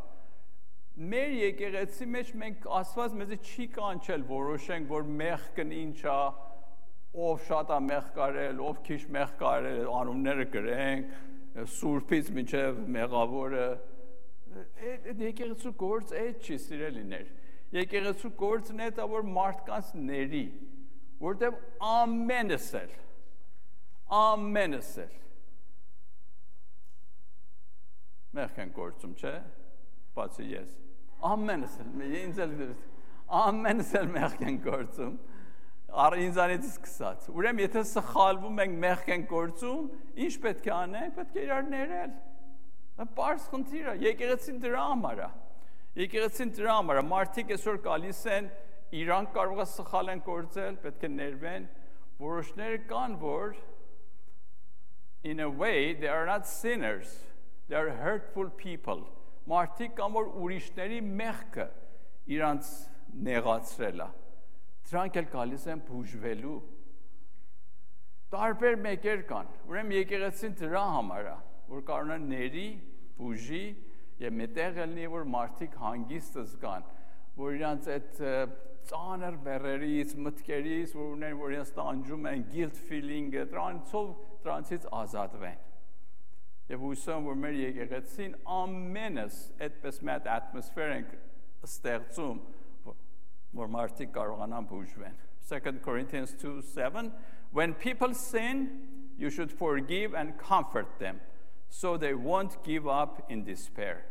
Մեր եկեղեցի մեջ մենք Աստված մեզ չի կանչել որոշենք, որ մեղքն ինչ է, ով շատ է մեղք կարել, ով քիչ մեղք կարել, անունները գրենք, սուրբից մինչև մեղավորը։ Այդ եկեղեցու գործ այդ չի, սիրելիներ։ Եկեղեցու գործն է դա որ մարդկանց ների, որտեղ ամենս էլ մեղք են գործում, չէ՞։ Բացի ես։ Ամենս էլ մեղք են գործում։ Ինձանից սկսած։ Ուրեմն եթե սխալվում ենք մեղք են գործում, ինչ պետք է անենք, պետք է իրար ներել։ Պարզ խնդիր է, եկեղեցին դրա համար է։ Եկեղեցին դրա համար է, մարդիկ այսօր գալիս են, իրանք կարող է սխալ են գործել, պետք է ներվեն, որոշները կան, որ in a way they are not sinners, they are hurtful people։ Մարդիկ կան, որ ուրիշների մեղքը իրանց նեղացրել է։ Դրանք էլ գալիս են բուժվելու։ Տարբեր մեկեր կան։ Ուրեմն եկեղեցին դրա համար է, որ կարողանա ների, բուժի եւ մտեղ ելնի, որ մարդիկ հանգիստ զգան, որ իրանց այդ ծանր բեռերից, մտքերից, որ ունեն, որ իրենց տանջում են, guilt feeling-ը, դրանցից ազատվեն։ Եվ հույսով եմ, որ մեր եկեղեցին ամենս այդպես մի հատ ատմոսֆեր ենք ստեղծում, որ մարդիկ կարողանան բուժվեն։ 2 Corinthians 2:7 When people sin, you should forgive and comfort them, so they won't give up in despair։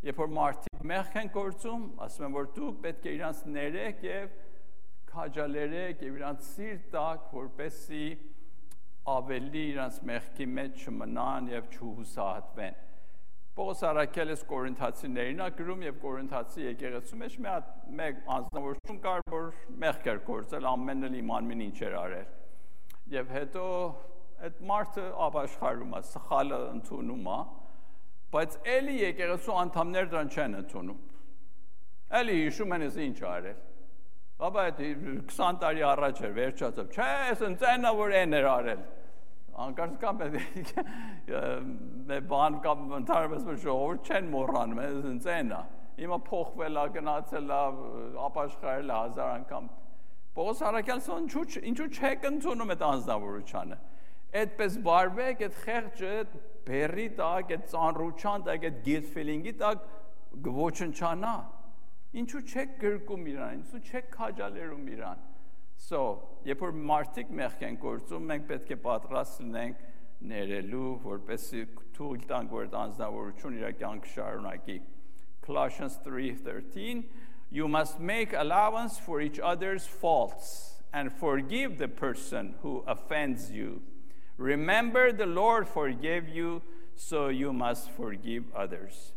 Երբ որ մարդիկ մեղք են գործում, ասում են, որ դուք պետք է իրանց ներեք եւ քաջալերեք եւ իրանց սիրտ տաք, որպեսզի ավելի իրանց մեղքի մեջ չմնան եւ չհուսահատվեն։ Պողոս առաքյալը Կորինթացիներին է գրում եւ Կորինթացի եկեղեցու մեջ մեկ անձնավորություն կար, որ մեղք էր գործել, ամենն էլ իմանին ինչ էր արել։ Եվ հետո այդ մարդը ապաշխարում է, սխալը ընդունում է, բայց էլի եկեղեցու անդամները դրան չեն ընդունում։ Էլի հիշում են ինչ արել։ Բաբա այդ 20 տարի առաջ էր վերջացավ։ Չէ, ես ընծենա որ այն էր արել։ Անկարծ կամ բան կամ ընդհանրապես ժողովուրդ չեն մոռանում, ես ընծենա։ Հիմա փոխվել է, գնացել է, ապաշխարել է 1000 անգամ։ Պողոս առաքյալը ինչու չեք ընդունում այդ անձնավորությունը։ Այդպես վարվեք, այդ խեղճը բերի տակ, այդ ծանրության տակ, այդ guilt feeling-ի տակ ոչնչանա։ Ինչու չեք գրկում իրան, ինչու չեք քաջալերում իրան։ So, երբ որ մարդիկ մեղք են գործում, մենք պետք է պատրաստ լինենք ներելու, որպեսզի թույլ տանք, որ այդ անձնավորությունը իր կյանքը շարունակի։ Colossians 3:13, you must make allowance for each other's faults and forgive the person who offends you. Remember the Lord forgave you, so you must forgive others.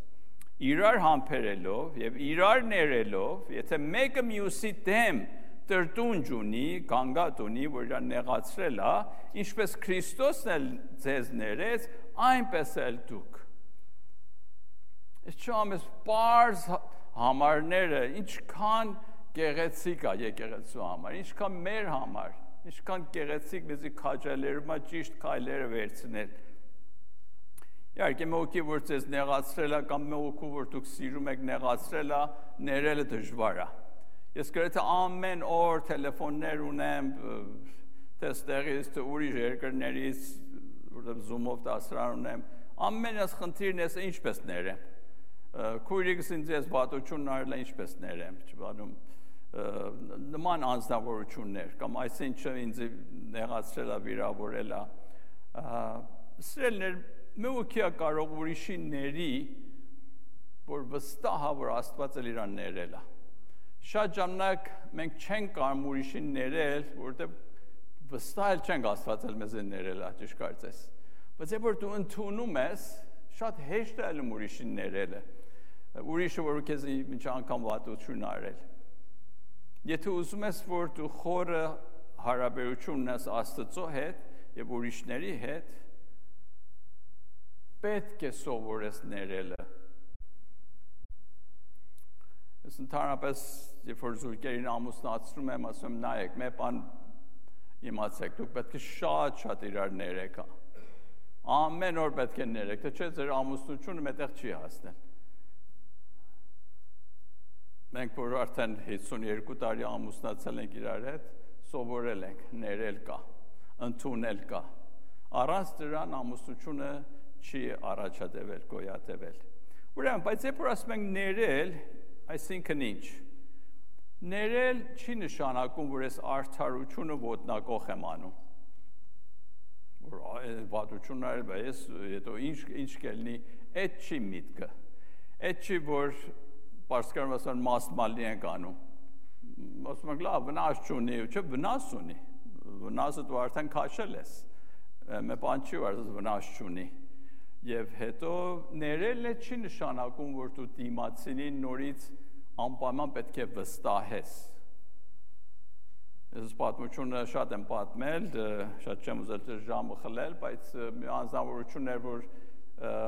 Իրար համբերելով եւ իրար ներելով, եթե մեկը մյուսի դեմ տրտունջ ունի, գանգատ ունի, որ իրան նեղացրել է, ինչպես Քրիստոսն էլ ձեզ ներեց, այնպես էլ դուք։ Այս չամես բարձ համարները ինչքան գեղեցիկ է եկեղեցու համար, ինչքան մեր համար, ինչքան գեղեցիկ մեզի քաջալերում է ճիշտ քայլերը վերցնել։ Իհարկե մեկի որ ձեզ նեղացրել է կամ մեկու որ դուք սիրում եք նեղացրել է, ներելը դժվար է։ Ես գրեթե ամեն օր տելեֆոններ ունեմ, տեստերից, ուրիշ երկրներից, որտեղ Zoom-ով դասարան ունեմ, ամեն այս խնդիրն ես ինչպես ներեմ։ Քույրիկս ինձ ես բատություն արել է ինչպես ներեմ, չբանում նման անձնավորություններ կամ այսինչը ինձ նեղացրել է, վիրավորել է։ Սրելներ մեկը կարող ուրիշի ների, որ վստահ է, որ Աստված էլ իրան ներել է։ Շատ ժամանակ մենք չենք կարող ուրիշին ներել, որովհետև վստահ էլ չենք Աստված էլ մեզ ներել է, ճիշտ կարծես։ Բայց երբ որ դու ընդունում ես, շատ հեշտ է ուրիշին ներելը։ Ուրիշը որ քեզ ինչ անգամ վատություն արել։ Եթե ուզում ես, որ դու խորը հարաբերություն ունես Աստծո հետ եւ ուրիշների հետ, պետք է սովորես ներելը։ Ես ընդհանրապես, երբ որ զույգերին ամուսնացնում եմ, ասում եմ, նայեք, մի բան իմացեք, դուք պետք է շատ իրար ներեք։ Ամեն օր պետք է ներեք, թե չէ ձեր ամուսնությունը մետեղ չի հասնել։ Մենք որ արդեն 52 տարի ամուսնացել ենք իրար հետ, սովորել ենք, ներել կա, ընդունել կա։ Առանց դրան ամուսնությունը չի առաջադեվել, գոյատևել։ Ուրեմն, բայց երբ որ ասում ենք ներել, այսինքն ինչ։ Ներել չի նշանակում, որ ես արդարությունը ոտնակող եմ անում։ Որ վատություն արել, բայց հետո ինչ կլինի, այդ չի միտքը։ Այդ չի, որ պարսկերեն ասան մասմալի ենք անում։ Ասում ենք, լավ, վնաս չունի, չէ, վնաս ունի։ Վնասը դու արդեն քաշել ես։ Մի բան չի, որ վնաս չունի։ Եվ հետո ներելը չի նշանակում, որ դու դիմացինին նորից անպայման պետք է վստահես։ Ես պատմությունը շատ եմ պատմել, շատ չեմ ուզել ձեր ժամը խլել, բայց մի անձնավորություն էր, որ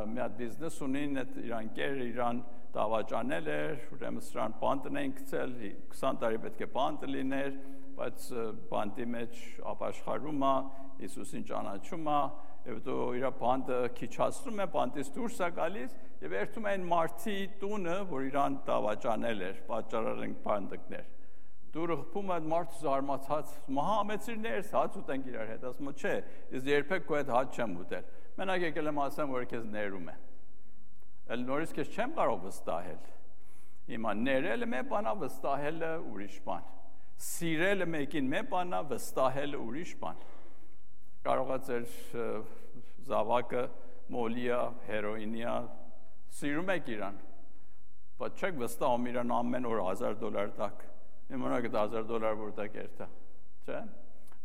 մի հատ բիզնես ունին, այդ իր ընկերը իրան դավաճանել էր, ուրեմն սրան բանտն էին գցել, 20 տարի պետք է բանտը լիներ, բայց բանտի մեջ ապաշխարում է, Հիսուսին ճանաչում է, եւ դու իր բանտը քիչացնում է, բանտից դուրս է գալիս եւ երթում են մարդի տունը, որ իրան դավաճանել էր, պատճառել բանտիկներ։ Դուրը խփում է մարդը զարմացած, մահամեցիրներ, հաց ուտենք իրար հետ, ասում է, չէ, ես երբեք քո հետ հաց չեմ ուտել։ Մենակ եկել եմ ասեմ, որ քեզ ներում եմ։ Էլ նորից քեզ չեմ կարող վստահել։ Հիմա ներելը մի բան է, վստահելը ուրիշ բան։ Սիրելը մեկին մի բան է, վստահելը ուրիշ բան։ Կարող է ձեր զավակը մոլիա, հերոինիա, սիրում եք իրան, բայց չեք վստահում իրան ամեն օր $1000 տակ, իմանաք այդ $1000 որտեղ երթա, չէ՞։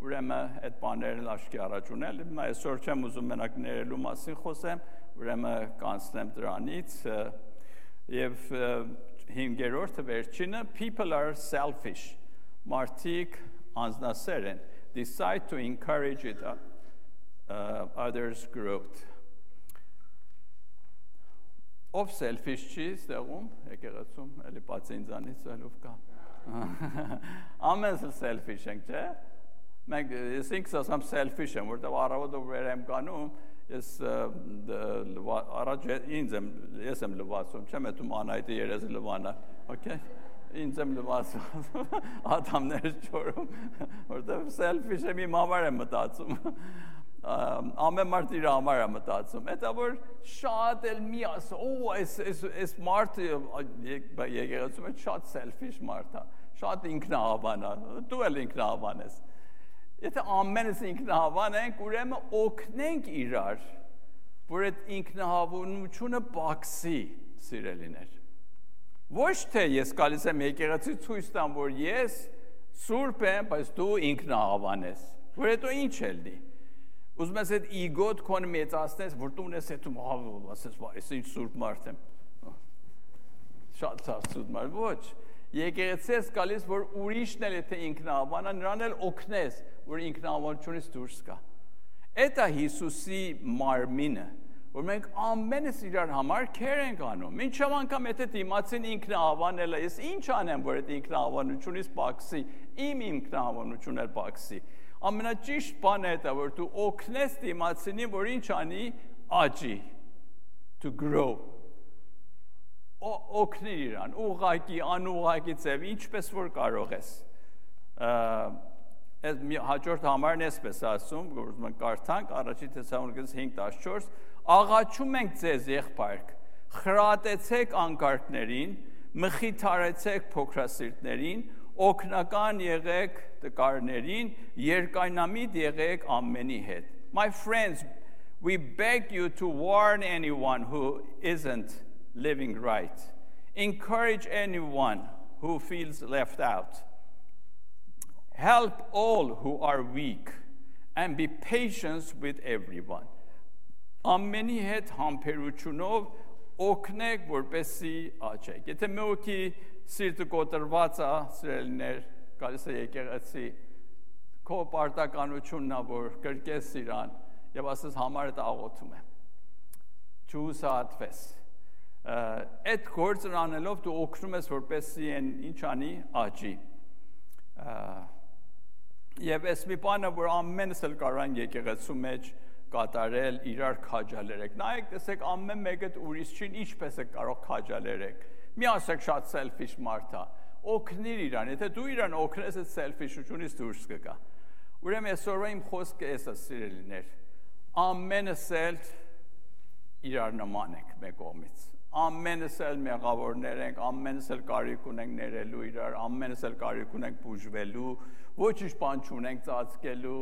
Ուրեմն այդ բաներն աշկի առաջ ունել, հիմա այսօր չեմ ուզում մենակ ներելու մասին խոսեմ, ուրեմն կանցնեմ դրանից եւ 5-րդը վերջինը, people are selfish, մարդիկ անձնասեր են, decide to encourage it, others' growth. Ով selfish չի ստեղում, եկեղեցում, էլի բացի ինձանից ելով կա։ Ամենը selfish ենք, չէ՞։ Մենք ես ինքս ասեմ selfish եմ, որտեղ առավոտը վեր եմ կանում, ես առաջ ես եմ լվացում, չեմ էտում Անայտի երեզը լվանա, okay։ Ինձ եմ լվացում, ատամներ չորում, որտեղ selfish եմ իմ համար եմ մտածում։ ամեն մարդ իր համար է մտածում, դա որ շատ էլ մի ասա, այս մարդը եկեղեցում է շատ selfish մարդ է, շատ ինքնահավան է, դու էլ ինքնահավան ես։ Եթե ամենս ինքնահավան ենք, ուրեմն օգնենք իրար, որ այդ ինքնահավանությունը պակսի, սիրելիներ։ Ոչ թե ես գալիս եմ եկեղեցի ցույց տամ, որ ես սուրբ եմ, բայց դու ինքնահավան ես, որ հետո ինչ է լինի։ Ուզում ես այդ իգոտ քոնը մեծացնես, որ դու ունես հետում ասես, այս ինչ սուրբ մարդ եմ։ Շատ ցավոտ մարդ, ոչ։ Եկեղեցի ես գալիս, որ ուրիշն էլ եթե ինքնահավան է, նրան էլ օգնես, որ ինքնահավանությունից դուրս գա։ Դա Հիսուսի մարմինը, որ մենք ամենս իրար համար քեր ենք անում։ Մինչև անգամ եթե դիմացին ինքնահավանել է, ես ինչ անեմ, որ այդ ինքնահավանությունից պակսի, իմ ինքնահավանությունն էլ պակսի։ Ամենաճիշտ բանը դա որ դու օգնես դիմացինին, որ ինչ անի, աճի, to grow։ Օգնի իրան, ուղղակի, անուղղակի ձև, ինչպես որ կարող ես։ Այս հաջորդ համարն էսպես ասում, որ մենք կարդանք առաջի Թեսաղոնիկես 5:14, աղաչում ենք ձեզ եղբայրք, խրատեցեք անկարգներին, մխիթարեցեք փոքրասիրտներին, օգնական եղեք տկարներին, երկայնամիտ եղեք ամենի հետ։ My friends, we beg you to warn anyone who isn't living right. Encourage anyone who feels left out. Help all who are weak and be patient with everyone. Ամենի հետ համբերությունով օգնեք, որպեսզի աճեք։ Եթե մեկի սիրտը կոտրված է, սիրելիներ, գալիս է եկեղեցի, քո պարտականությունն է, որ կրկես իրան եւ ասես համարդ աղոթում եմ։ Չուսատվես։ Այդ գործն անելով դու օգնում ես, որպեսզի ինչ անի, աճի։ Եվ այս մի բանը, որ ամենս էլ կարող են եկեղեցու մեջ կատարել, իրար քաջալերեք։ Նայեք, տեսեք ամեն մեկը ուրիշին ինչպես է կարող քաջալերեք։ Մի ասեք շատ selfish մարդ է։ Օգնիր իրան, եթե դու իրան օգնես, այդ selfish-ությունից դուրս կգա։ Ուրեմն այսօրվա իմ խոսքը էս է, սիրելիներ։ Ամենս էլ իրար նման ենք մեկ կողմից։ Ամենս էլ մեղավորներ ենք, ամենս էլ կարիք ունենք ներելու իրար, ամենս էլ կարիք ունենք բուժվելու, ոչինչ բան չունենք ծածկելու,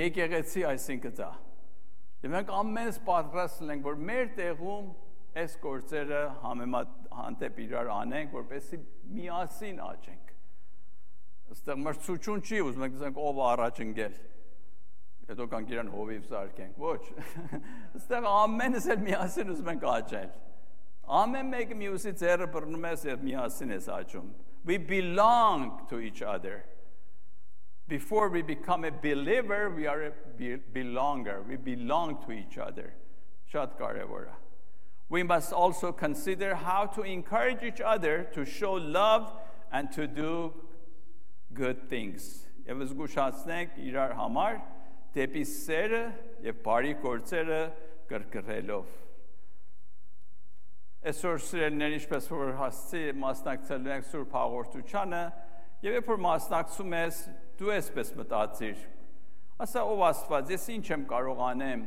եկեղեցի այսինքն դա։ Եվ մենք ամենս պատրաստ ենք, որ մեր տեղում այս գործերը հանդեպ իրար անենք, որպեսզի միասին աճենք։ Այստեղ մրցություն չի, ուզում ենք ասենք ով առաջ ընկել։ Հետո կանք իրան հովիվ զարկենք, ոչ։ Այստեղ ամենս էլ միասին ուզում ենք աճել։ Ամեն մեկը մյուսի ձեռը բռնում ես եւ միասին ես աճում։ We belong to each other. Before we become a believer, we are a belonger. We belong to each other. Շատ կարևոր է։ We must also consider how to encourage each other to show love and to do good things. Եվ զգուշացնենք իրար համար դեպի սերը եւ բարի գործերը կրկրելով։ Այսօր սիրելիներ, ինչպես որ հասցի մասնակցելու ենք Սուրբ Հաղորդությանը, եւ երբ որ մասնակցում ես, դու այսպես մտածիր։ Ասա ով Աստված, ես ինչ եմ կարող անեմ,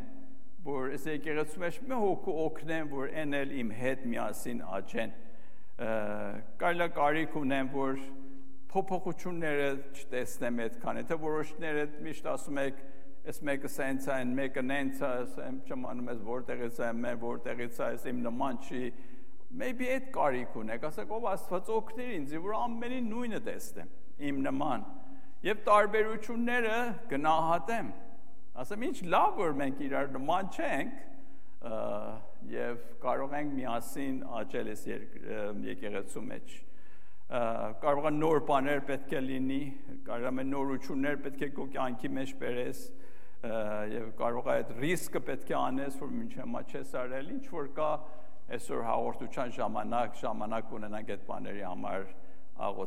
որ այս եկեղեցու մեջ մի հոգու օգնեմ, որ այն էլ իմ հետ միասին աճեն։ Կարելի է կարիք ունեմ, որ փոփոխությունները չտեսնեմ այդքան, եթե որոշները միշտ ասում եք, այս մեկը սենց է, մեկը նենց է, ասեմ չմանում ես որտեղից է, մեն որտեղից է, իմ նման չի, maybe այդ կարիք ունեք, ասեք ով Աստված օգնիր ինձ, որ ամենին նույնը տեսնեմ, իմ նման, եւ տարբերությունները գնահատեմ, ասեմ ինչ լավ որ մենք իրար նման չենք, եւ կարող ենք միասին աճել այս եկեղեցու մեջ, կարող է նոր բաներ պետք է լինի, կարող է նորություններ պետք է քո կյանքի մեջ բերես, եւ կարող է այդ ռիսկը պետք է անես, որ մինչև հիմա չես արել, ինչ որ կա այսօր հաղորդության ժամանակ ունենանք այդ բաների համար աղոթ